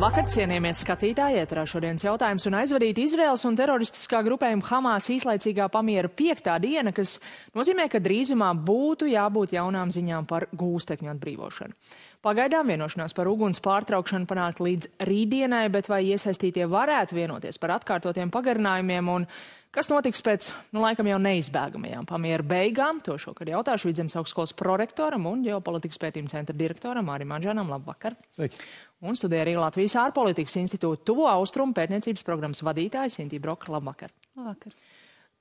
Labvakar, cienījamies skatītāji, ēterā šodienas jautājums un aizvadīt Izraels un teroristiskā grupējuma Hamas īslaicīgā pamiera 5. diena, kas nozīmē, ka drīzumā būtu jābūt jaunām ziņām par gūstekņu atbrīvošanu. Pagaidām vienošanās par uguns pārtraukšanu panākt līdz rītdienai, bet vai iesaistītie varētu vienoties par atkārtotiem pagarinājumiem un kas notiks pēc, laikam jau neizbēgamajām pamiera beigām? To šokar jautāšu Vidzemes augstskolas prorektoram un ģeopolitikas pētījuma centra direktoram Mārim Anžanam. Labvakar! Sveiki! Un studē arī Latvijas ārpolitikas institūta Tuvo Austrumu pētniecības programmas vadītājs Intī Broka. Labvakar! Labvakar!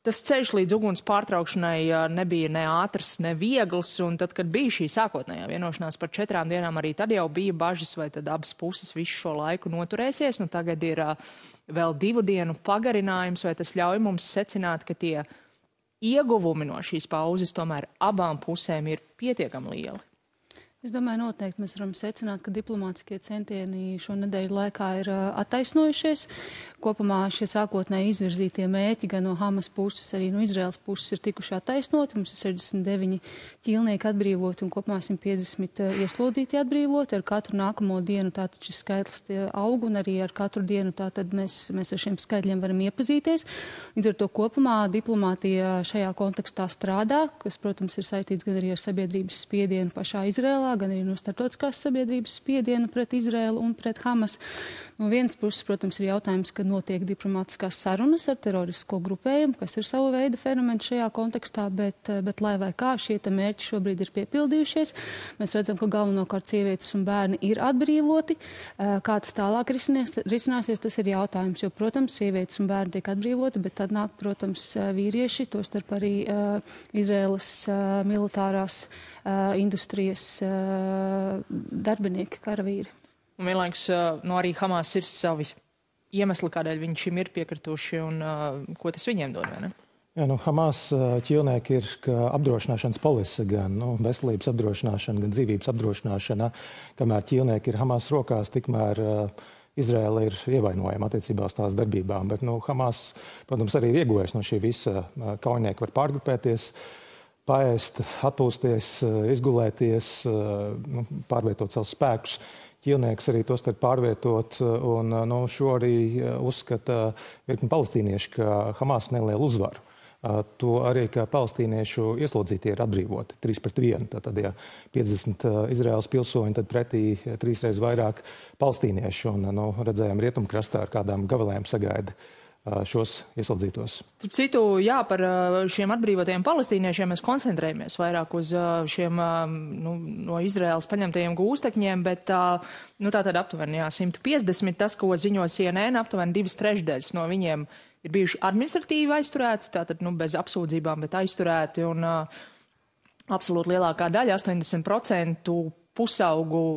Tas ceļš līdz uguns pārtraukšanai nebija ne ātrs, ne viegls, un tad, kad bija šī sākotnējā vienošanās par 4 dienām, arī tad jau bija bažas, vai tad abas puses visu šo laiku noturēsies. Tagad ir vēl 2 dienu pagarinājums, vai tas ļauj mums secināt, ka tie ieguvumi no šīs pauzes tomēr abām pusēm ir pietiekami lieli? Es domāju, noteikti mēs varam secināt, ka diplomātiskie centieni šo nedēļu laikā ir attaisnojušies. Kopumā šie sākotnēji izvirzītie mērķi gan no Hamas puses, arī no Izraels puses ir tikuši attaisnoti. Mums ir 69 ķīlnieki atbrīvoti un kopumā 150 ieslodzīti atbrīvoti. Ar katru nākamo dienu tātad šis skaitlis aug un arī ar katru dienu tātad mēs ar šiem skaitļiem varam iepazīties. Līdz ar to kopumā diplomātija šajā kontekstā strādā, kas, protams, ir saistīts gan arī ar sabiedrības spiedienu pašā Izrēlā, gan arī no starptautiskās sabiedrības spiedienu pret Izrēlu un pret Hamas. No vienas puses, protams, ir jautājums, ka notiek diplomātiskās sarunas ar teroristisko grupējumu, kas ir sava veida fenomens šajā kontekstā, bet lai vai kā šie mērķi šobrīd ir piepildījušies. Mēs redzam, ka galvenokārt sievietes un bērni ir atbrīvoti. Kā tas tālāk risināsies, tas ir jautājums, jo, protams, sievietes un bērni tiek atbrīvoti, bet tad nāk, protams, vīrieši, tostarp arī Izraēlas militārās industrijas darbinieki, karavīri. Un vienlaikus arī Hamas ir savi iemesli, kādēļ viņi šim ir piekrituši un ko tas viņiem dod, vai ne? Jā, Hamas ķīlnieki ir apdrošināšanas polise, gan veselības apdrošināšana, gan dzīvības apdrošināšana. Kamēr ķīlnieki ir Hamas rokās, tikmēr Izraela ir ievainojama attiecībā uz tās darbībām. Bet Hamas, protams, arī ir ieguvējis no šī visa. Kaujinieki var pārgrupēties, paēst, atpūsties, izgulēties, pārvietot savus spēkus. Ķīlnieks arī tos tad pārvietot, un šo arī uzskata virkni palestīnieši, ka Hamas nelielu uzvaru. To arī, ka palestīniešu ieslodzītie ir atbrīvoti 3-1. Tātad, ja 50 Izraēlas pilsoņi, tad pretī 3 reizes vairāk palestīniešu. Un redzējām rietumkrastā ar kādām gavilēm sagaida šos ieslodzītos. Starp citu, jā, par šiem atbrīvotajiem palestīniešiem mēs koncentrējamies vairāk uz šiem no Izraēlas paņemtajiem gūstekņiem, bet tātad aptuveni 150, tas, ko ziņo CNN, aptuveni 2/3 no viņiem ir bijuši administratīvi aizturēti, tātad bez apsūdzībām, bet aizturēti, un absolūti lielākā daļa, 80% pusaugu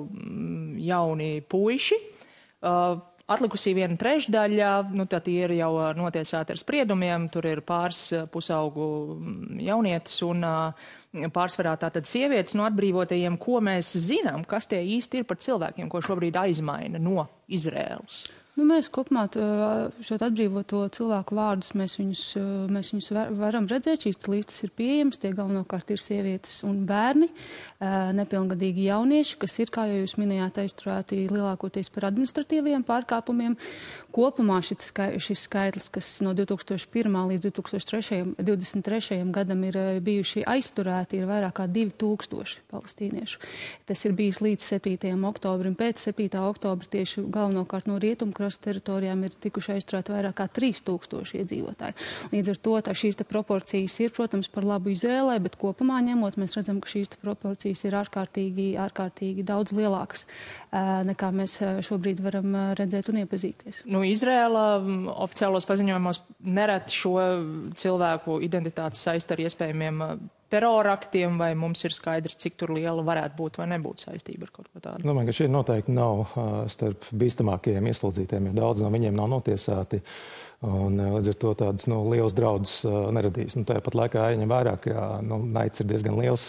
jauni puiši. Atlikusī 1/3, tad ir jau notiesāti ar spriedumiem, tur ir pāris pusaugu jaunietis un pārsvarā tātad sievietes no atbrīvotajiem, ko mēs zinām, kas tie īsti ir par cilvēkiem, ko šobrīd aizmaina no Izraēlas. Mēs kopumā šo atbrīvoto cilvēku vārdus, mēs viņus varam redzēt, šīs listas ir pieejamas, tie galvenokārt ir sievietes un bērni, nepilngadīgi jaunieši, kas ir, kā jau jūs minējāt, aizturēti lielākoties par administratīviem pārkāpumiem. Kopumā šis skaitlis, kas no 2001. līdz 2023. gadam ir bijuši aizturēti, ir vairāk kā 2000 palestīniešu. Tas ir bijis līdz 7. oktobrim. Pēc 7. oktobra tieši galvenokārt no rietumkrasta teritorijām ir tikuši aizturēti vairāk kā 3000 iedzīvotāji. Līdz ar to šīs proporcijas ir, protams, par labu Izrēlai, bet kopumā ņemot, mēs redzam, ka šīs proporcijas ir ārkārtīgi daudz lielākas, nekā mēs šobrīd varam redzēt un iepazīties. Izrēla oficiālos paziņojumos nereti šo cilvēku identitātes saista ar iespējamiem teroraktiem, vai mums ir skaidrs, cik tur liela varētu būt vai nebūt saistība ar kaut ko tādu? Domāju, ka šie noteikti nav starp bīstamākajiem ieslodzītiem, jo daudz no viņiem nav notiesāti. Un līdz ar to tādus lielus draudus neradīs. Tāpat laikā jāņem vērā, ka naids ir diezgan liels.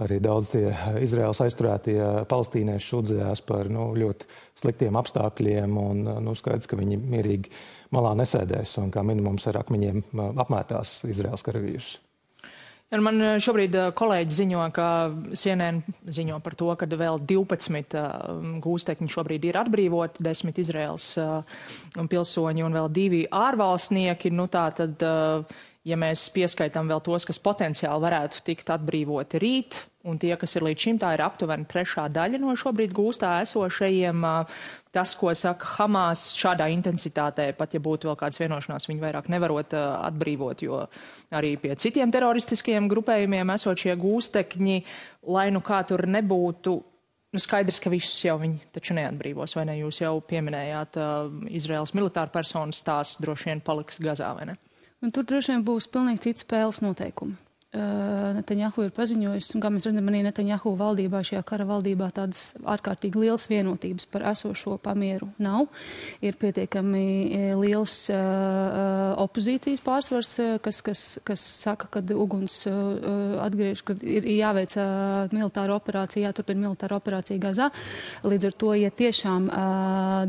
Arī daudz tie Izraēlas aizturētie palestīnieši sūdzējās par ļoti sliktiem apstākļiem un skaidrs, ka viņi mierīgi malā nesēdēs un kā minimums ar akmeņiem apmētās Izraēlas karavīrus. Man šobrīd kolēģi ziņo, ka CNN ziņo par to, ka vēl 12 gūstekņi šobrīd ir atbrīvoti, 10 Izraels pilsoņi un vēl 2 ārvalstnieki. Nu, tā tad, ja mēs pieskaitām vēl tos, kas potenciāli varētu tikt atbrīvoti rīt, un tie, kas ir līdz šim, tā ir aptuveni 3. daļa no šobrīd gūstā esošajiem. Tas, ko saka Hamas, šādā intensitātē, pat ja būtu vēl kāds vienošanās, viņi vairāk nevarot atbrīvot, jo arī pie citiem teroristiskiem grupējumiem esot šie gūstekņi, lai nu kā tur nebūtu, nu skaidrs, ka visus jau viņi taču neatbrīvos, vai ne? Jūs jau pieminējāt Izraels militāru personas, tās droši vien paliks Gazā, vai ne? Un tur droši vien būs pilnīgi cits spēles noteikumi. Netanjahu ir paziņojis, un kā mēs redzam, arī Netanjahu valdībā, šajā kara valdībā tādas ārkārtīgi liels vienotības par esošo pamieru nav. Ir pietiekami liels opozīcijas pārsvars, kas saka, ka uguns atgriež, ka ir jāveic militāra operācija, jāturpina militāra operācija Gazā. Līdz ar to, ja tiešām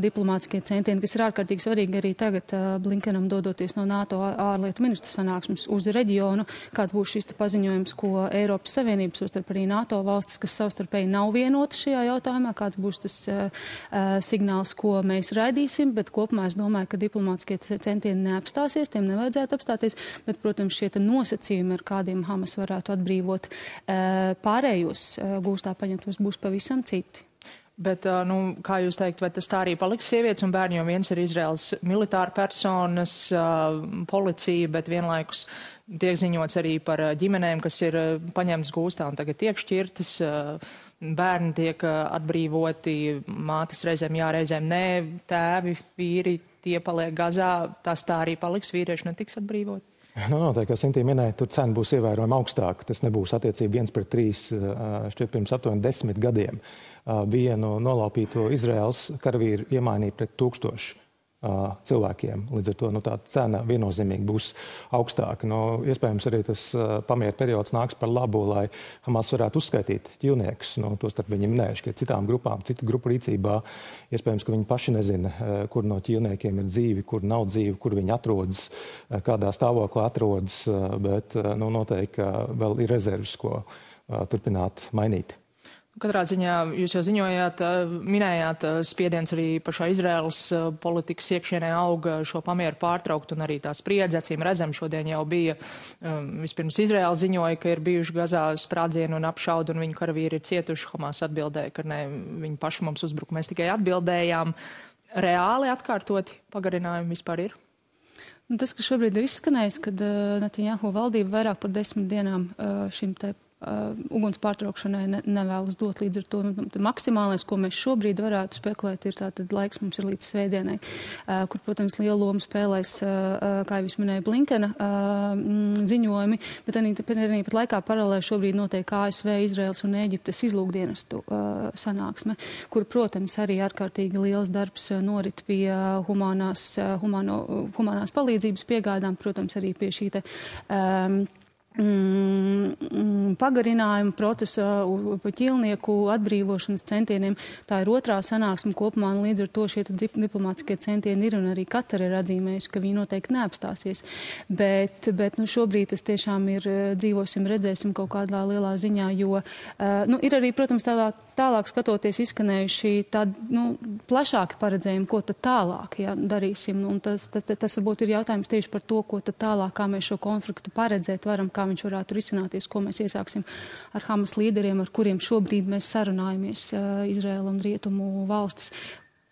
diplomātiskie centieni, kas ir ārkārtīgi svarīgi arī tagad Blinkenam dodoties no NATO ārlietu ministru sanāksmes uz reģionu, kāds būs šis paziņojums, ko Eiropas Savienības, tostarp arī NATO valstis, kas savstarpēji nav vienoti šajā jautājumā, kāds būs tas signāls, ko mēs raidīsim, bet kopumā es domāju, ka diplomātiskie centieni neapstāsies, tiem nevajadzētu apstāties, bet, protams, šie nosacījumi, ar kādiem Hamas varētu atbrīvot pārējos gūstā paņemtos, būs pavisam citi. Bet, nu, kā jūs teikt, vai tas tā arī paliks sievietes un bērni, jo viens ir Izraels militāra personas, policija, bet vienlaikus tiek ziņots arī par ģimenēm, kas ir paņemtas gūstā un tagad tiek šķirtas, bērni tiek atbrīvoti, mātes reizēm jā, reizēm nē, tēvi, vīri, tie paliek Gazā, tas tā arī paliks, vīrieši netiks atbrīvoti? Nu, noteikti, kā Sintīna minēja, tur cena būs ievērojami augstāka. Tas nebūs attiecība 1:3, šķiet pirms aptuveni 10 gadiem. Vienu nolaupīto Izraels karavīru iemainīja pret 1000 cilvēkiem. Līdz ar to tā cena viennozīmīgi būs augstāka. Iespējams, arī tas pamiera periods nāks par labu, lai Hamas varētu uzskaitīt ķīlniekus. Tostarp viņi minējuši, ka citu grupu rīcībā iespējams, ka viņi paši nezina, kur no ķīlniekiem ir dzīvi, kur nav dzīvi, kur viņi atrodas, kādā stāvoklā atrodas, bet noteikti vēl ir rezerves, ko turpināt mainīt. Katrā ziņā jūs jau ziņojāt, minējāt spiediens arī pašā Izraēlas politikas iekšienē auga šo pamieru pārtraukt un arī tā spriedze, acīm redzam, šodien jau bija, vispirms Izraēla ziņoja, ka ir bijuši Gazā sprādzieni un apšaudi un viņu karavīri ir cietuši. Hamas atbildēja, ka ne, viņi paši mums uzbruk, mēs tikai atbildējām. Reāli atkārtoti pagarinājumi vispār ir? Tas, kas šobrīd ir izskanējis, kad Netanjahu valdība vairāk par 10 dienām šim te uguns pārtraukšanai nevēlas dot, līdz ar to maksimālais, ko mēs šobrīd varētu spekulēt, ir tātad laiks mums ir līdz svētdienai, kur, protams, lielu lomu spēlēs, kā jau es minēju, Blinkena ziņojumi, bet arī pat laikā paralēli šobrīd notiek ASV, Izraels un Ēģiptes izlūkdienestu sanāksme, kur, protams, arī ārkārtīgi liels darbs norit pie humanās palīdzības piegādām, protams, arī pie šī te pagarinājumu procesa pa ķīlnieku atbrīvošanas centieniem. Tā ir otrā sanāksme kopumā, un līdz ar to šie diplomātiskie centieni ir, un arī Katara ir atzīmējusi, ka viņi noteikti neapstāsies. Bet šobrīd tas tiešām ir dzīvosim, redzēsim kaut kādā lielā ziņā, jo ir arī, protams, tālāk skatoties izskanējuši tādi plašāki paredzējumi, ko tad tālāk darīsim. Un tas varbūt ir jautājums tieši par to, ko tad tālāk, kā mēs šo konfliktu paredzēt varam, kā viņš varētu risināties, ko mēs iesāksim ar Hamas līderiem, ar kuriem šobrīd mēs sarunājamies, Izraela un Rietumu valstis.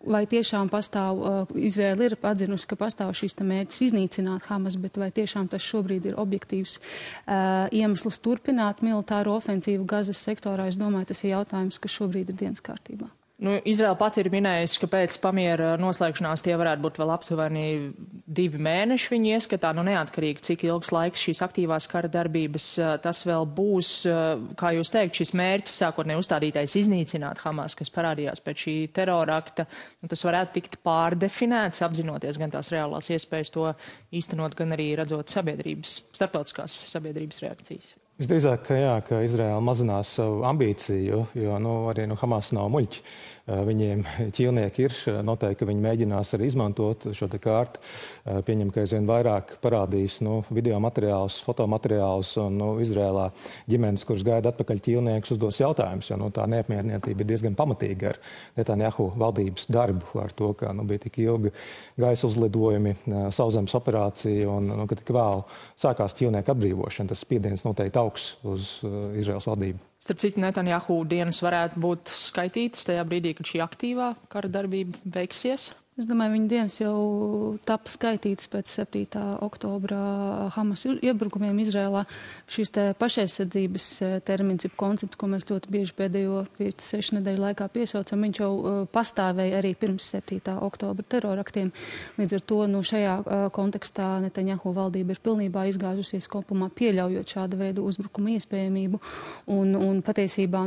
Vai tiešām pastāv, Izraela ir atzinusi, ka pastāv šīs mērķis iznīcināt Hamas, bet vai tiešām tas šobrīd ir objektīvs iemesls turpināt militāro ofensīvu Gazas sektorā? Es domāju, tas ir jautājums, kas šobrīd ir dienas kārtībā. Izraela pati ir minējusi, ka pēc pamiera noslēgšanās tie varētu būt vēl aptuveni 2 mēneši viņi ieskatā, neatkarīgi, cik ilgs laiks šīs aktīvās kara darbības tas vēl būs. Kā jūs teikt, šis mērķis sākotnēji uzstādītais iznīcināt Hamas, kas parādījās pēc šī terrorakta, tas varētu tikt pārdefinēts, apzinoties gan tās reālās iespējas to īstenot, gan arī redzot starptautiskās sabiedrības reakcijas. Visdrīzāk, ka Izraēla mazinās savu ambīciju, jo arī Hamas nav muļķi. viņiem ķīlnieki ir. Noteikti, ka viņi mēģinās arī izmantot šo te kārtu. Pieņem, ka aizvien vairāk parādīs video materiālus, fotomateriālus un Izrēlā ģimenes, kuras gaida atpakaļ ķīlniekus, uzdos jautājumus, jo tā neapmierinātība ir diezgan pamatīga ar Netanjahu valdības darbu, ar to, ka bija tik ilgi gaisa uzlidojumi, sauszemes operācija un ka tik vēl sākās ķīlnieku atbrīvošana. Tas spiediens noteikti augs uz Izraēlas valdību. Starp citu, Netanjahu dienas varētu būt skaitītas tajā brīdī, kad šī aktīvā kara darbība beigsies? Es domāju, viņa dienas jau tapa skaitītas pēc 7. oktobra Hamas iebrukumiem Izrēlā. Šis te pašaizsardzības termins, koncepts, ko mēs ļoti bieži pēdējo 5-6 nedēļu laikā piesaucam, viņš jau pastāvēja arī pirms 7. oktobra teroraktiem. Līdz ar to šajā kontekstā Netanjahu valdība ir pilnībā izgāzusies kopumā, pieļaujot šāda veida uzbrukuma iespējamību. Un patiesībā,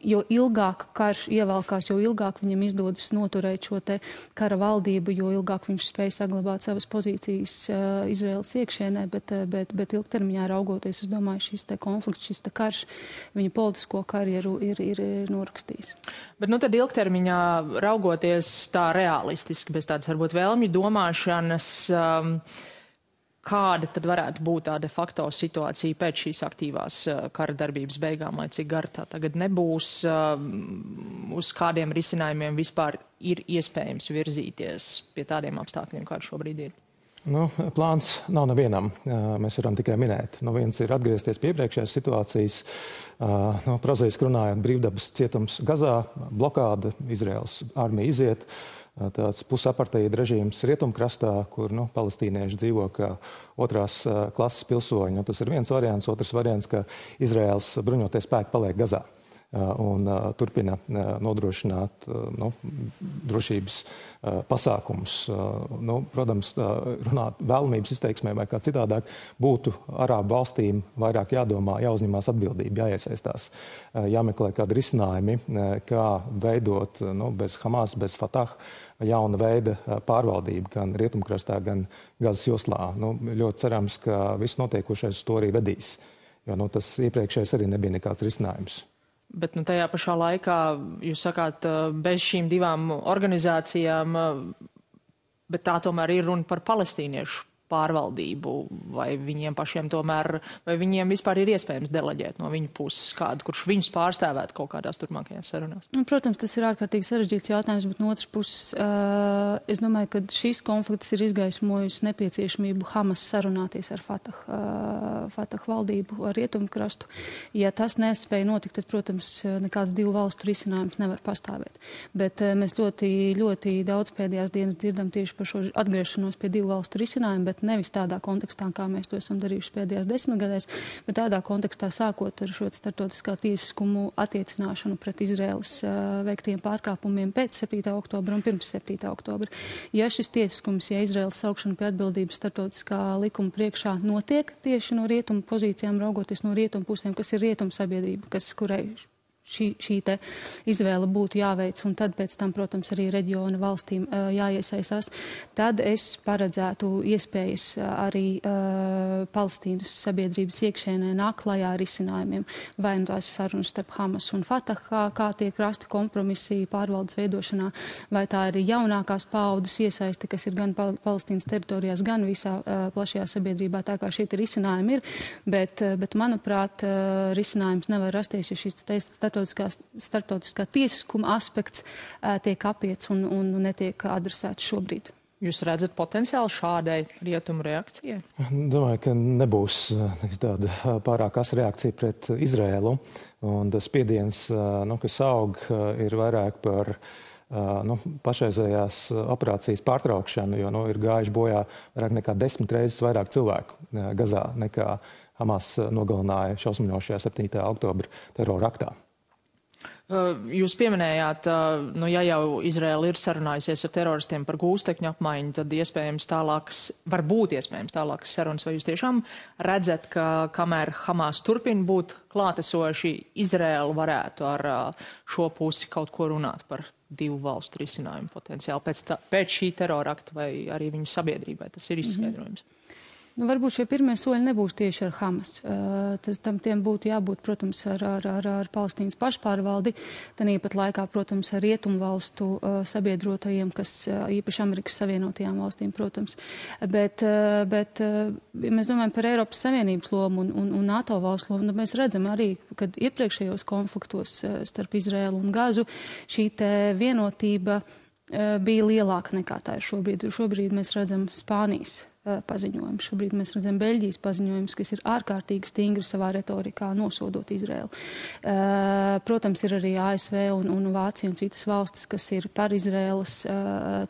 jo ilgāk karš ievelkās, jo ilgāk viņam izdodas noturēt šo te kara valdību, jo ilgāk viņš spēja saglabāt savas pozīcijas Izraēlas iekšienē, bet ilgtermiņā raugoties, es domāju, šis te konflikts, šis te karš, viņa politisko karjeru ir norakstījis. Bet tad ilgtermiņā raugoties tā realistiski, bez tādas varbūt vēlmju domāšanas, kāda tad varētu būt tā de facto situācija pēc šīs aktīvās kara darbības beigām, lai cik gara tā tagad nebūs, uz kādiem risinājumiem vispār ir iespējams virzīties pie tādiem apstākļiem, kādi šobrīd ir? Plāns nav nevienam. Mēs varam tikai minēt. Viens ir atgriezties pie iepriekšējās situācijas. Prozaiski runājot, brīvdabas cietums Gazā, blokāda, Izraēlas armija iziet. Tāds pusaparteida režīms rietumkrastā, kur palestīnieši dzīvo kā otrās klases pilsoņi. Tas ir viens variants. Otrs variants, ka Izraēlas bruņotie spēki paliek Gazā un turpina nodrošināt drošības pasākumus. Protams, runāt vēlamības izteiksmē vai kā citādāk būtu Arābu valstīm vairāk jādomā, jāuzņemās atbildība, jāiesaistās, jāmeklē kādi risinājumi, kā veidot bez Hamas, bez Fatah jauna veida pārvaldību gan rietumkrastā, gan Gazas joslā. Ļoti cerams, ka viss notiekošais uz to arī vedīs, jo tas iepriekšējais arī nebija nekāds risinājums. Bet tajā pašā laikā, jūs sakāt, bez šīm divām organizācijām, bet tā tomēr ir runa par palestīniešu pārvaldību, vai viņiem pašiem tomēr, vai viņiem vispār ir iespējams deleģēt no viņu puses kādu, kurš viņus pārstāvētu kaut kādās turpmākajās sarunās? Protams, tas ir ārkārtīgi sarežģīts jautājums, bet no otras puses, es domāju, ka šīs konflikts ir izgaismojis nepieciešamību Hamas sarunāties ar Fatah valdību, ar rietumkrastu. Ja tas nespēja notikt, tad, protams, nekāds divu valstu risinājums nevar pastāvēt. Bet mēs ļoti, ļoti daudz pēdējās dienas dzirdam tieši par šo atgriešanos pie divu valstu risinājumu, bet nevis tādā kontekstā, kā mēs to esam darījuši pēdējās 10 gadēs, bet tādā kontekstā sākot ar šo starptautiskā tiesiskumu attiecināšanu pret Izraēlas veiktiem pārkāpumiem pēc 7. oktobra un pirms 7. oktobra. Ja šis tiesiskums, ja Izraēlas saukšana pie atbildības starptautiskā likuma priekšā notiek tieši no rietumu pozīcijām, raugoties no rietumu pusēm, kas ir rietumu sabiedrība, kurai šī te izvēle būtu jāveic, un tad pēc tam, protams, arī reģiona valstīm jāiesaistās, tad es paredzētu iespējas arī Palestīnas sabiedrības iekšēnē nāk klajā ar risinājumiem, vai tās sarunas starp Hamas un Fatah, kā tiek rasti kompromisi pārvaldes veidošanā, vai tā ir jaunākās paaudzes iesaiste, kas ir gan Palestīnas teritorijās, gan visā plašajā sabiedrībā, tā kā šie risinājumi ir, bet manuprāt, risinājums nevar rasties, ja šis starptautiskā tiesiskuma aspekts tiek apiets un netiek adresēts šobrīd. Jūs redzat potenciāli šādai rietumu reakcijai? Domāju, ka nebūs tāda pārāk asa reakcija pret Izraēlu. Un tas spiediens, kas aug, ir vairāk par pašreizējās operācijas pārtraukšanu, jo ir gājuši bojā vairāk nekā 10 reizes vairāk cilvēku Gazā nekā Hamas nogalināja šausminošajā 7. oktobra terora aktā. Jūs pieminējāt, ja jau Izraēla ir sarunājusies ar teroristiem par gūstekņu apmaiņu, tad varbūt iespējams tālākas sarunas. Vai jūs tiešām redzat, ka kamēr Hamas turpina būt klātesoši, Izraēla varētu ar šo pusi kaut ko runāt par divu valstu risinājumu potenciāli pēc šī terora akta vai arī viņu sabiedrībai? Tas ir izskaidrojums. Nu, varbūt šie pirmie soļi nebūs tieši ar Hamas. Tiem būtu jābūt, protams, ar Palestīnas pašpārvaldi, tāpat laikā, protams, ar rietumvalstu sabiedrotajiem, kas īpaši Amerikas Savienotajām valstīm, protams. Bet mēs domājam par Eiropas Savienības lomu un NATO valstu lomu. Mēs redzam arī, kad iepriekšējos konfliktos starp Izraēlu un Gazu šī te vienotība bija lielāka nekā tā ir šobrīd. Šobrīd mēs redzam Spānijas paziņojums. Šobrīd mēs redzam Beļģijas paziņojums, kas ir ārkārtīgi stingri savā retorikā nosodot Izraēlu. Protams, ir arī ASV un Vācija un citas valstis, kas ir par Izraēlas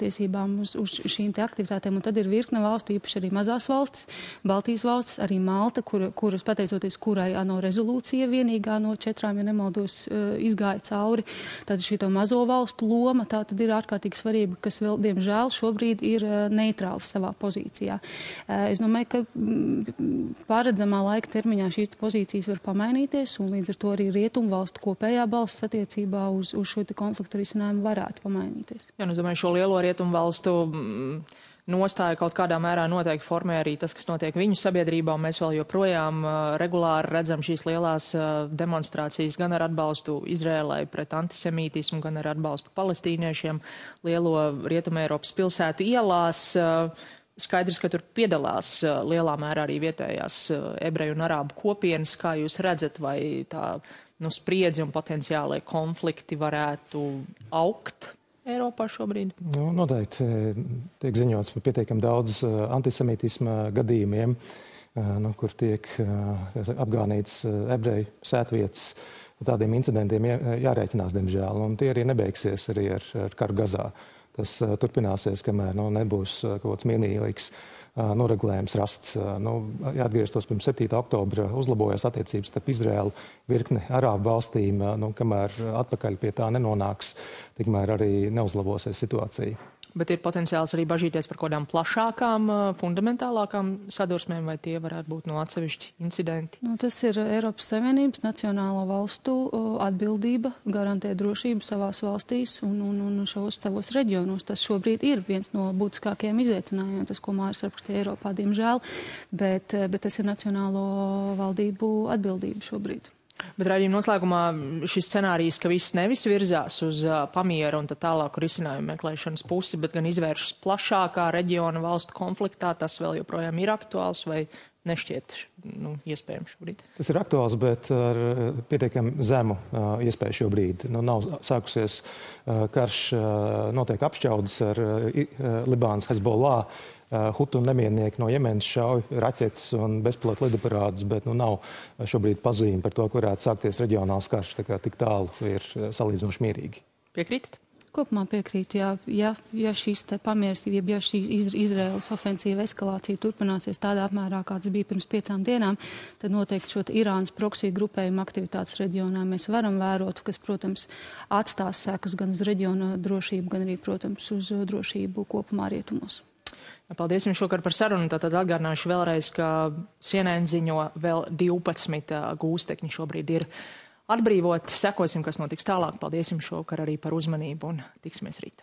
tiesībām uz šīm te aktivitātēm. Un tad ir virkne valstu, īpaši arī mazās valstis, Baltijas valstis, arī Malta, kuras pateicoties kurai ANO rezolūcija vienīgā no 4, ja nemaldos, izgāja cauri. Tātad šī mazo valstu loma tā tad ir ārkārtīgi svarīga, kas vēl, diemžēl, šobrīd ir neitrāls savā pozīcijā. Es domāju, ka pārredzamā laika termiņā šīs pozīcijas var pamainīties, un līdz ar to arī rietumvalstu kopējā balss attiecībā uz šo konfliktu risinājumu varētu pamainīties. Jā, nu, domāju, šo lielo rietumvalstu nostāja kaut kādā mērā noteikti formē arī tas, kas notiek viņu sabiedrībā, un mēs vēl joprojām regulāri redzam šīs lielās demonstrācijas gan ar atbalstu Izrēlai pret antisemītismu, gan ar atbalstu palestīniešiem lielo Rietumē Eiropas pilsētu ielās. Skaidrs, ka tur piedalās lielā mērā arī vietējās ebreju un arābu kopienas. Kā jūs redzat, vai tā spriedzi un potenciālai konflikti varētu augt Eiropā šobrīd? Nu, noteikti tiek ziņots par pietiekami daudz antisemītisma gadījumiem, kur tiek apgānīts ebreju sētvietas. Tādiem incidentiem jārēķinās, diemžēl, un tie arī nebeigsies arī ar karu Gazā. Tas turpināsies, kamēr nebūs kaut kāds mierīgs noregulējums rasts. Jāatgrieztos pirms 7. oktobra uzlabojās attiecības starp Izraēlu virkni arābu valstīm, kamēr atpakaļ pie tā nenonāks, tikmēr arī neuzlabosies situācija. Bet ir potenciāls arī bažīties par kaut kādām plašākām, fundamentālākām sadursmēm, vai tie varētu būt atsevišķi incidenti? Tas ir Eiropas Savienības nacionālo valstu atbildība garantēt drošību savās valstīs un šos savos reģionos. Tas šobrīd ir viens no būtiskākajiem izaicinājumiem, tas, ko Māris rakstīja Eiropā, diemžēl, bet tas ir nacionālo valdību atbildība šobrīd. Bet raidījuma noslēgumā šis scenārijs, ka viss nevis virzās uz pamiera un tālāku risinājumu meklēšanas pusi, bet gan izvēršas plašākā reģiona valstu konfliktā, tas vēl joprojām ir aktuāls vai nešķiet iespējams šobrīd? Tas ir aktuāls, bet ar pietiekami zemu iespēju šobrīd. Nav sākusies karš, notiek apšķaudas ar Libānas Hezbollah. Hutu nemiernieki no Jemenas šauj raķetes un bezpilota lidaparātus, bet nav šobrīd pazīme par to, ka varētu sākties reģionāls karš, tā kā tik tālu ir salīdzinoši mierīgi. Piekrītat? Kopumā piekrīt, ja šīs te pamieras, ja šī Izraēlas ofensīva eskalācija turpināsies tādā apmērā, kāds bija pirms 5 dienām, tad noteikti šo Irānas proksiju grupējumu aktivitātes reģionā mēs varam vērot, kas, protams, atstās sekas gan uz reģiona drošību, gan arī, protams, uz drošību kopumā rietumos. Paldies jums šokar par sarunu. Tātad atgādināšu vēlreiz, ka CNN ziņo vēl 12 gūstekņi šobrīd ir atbrīvoti. Sekosim, kas notiks tālāk. Paldies jums šokar arī par uzmanību un tiksimies rīt.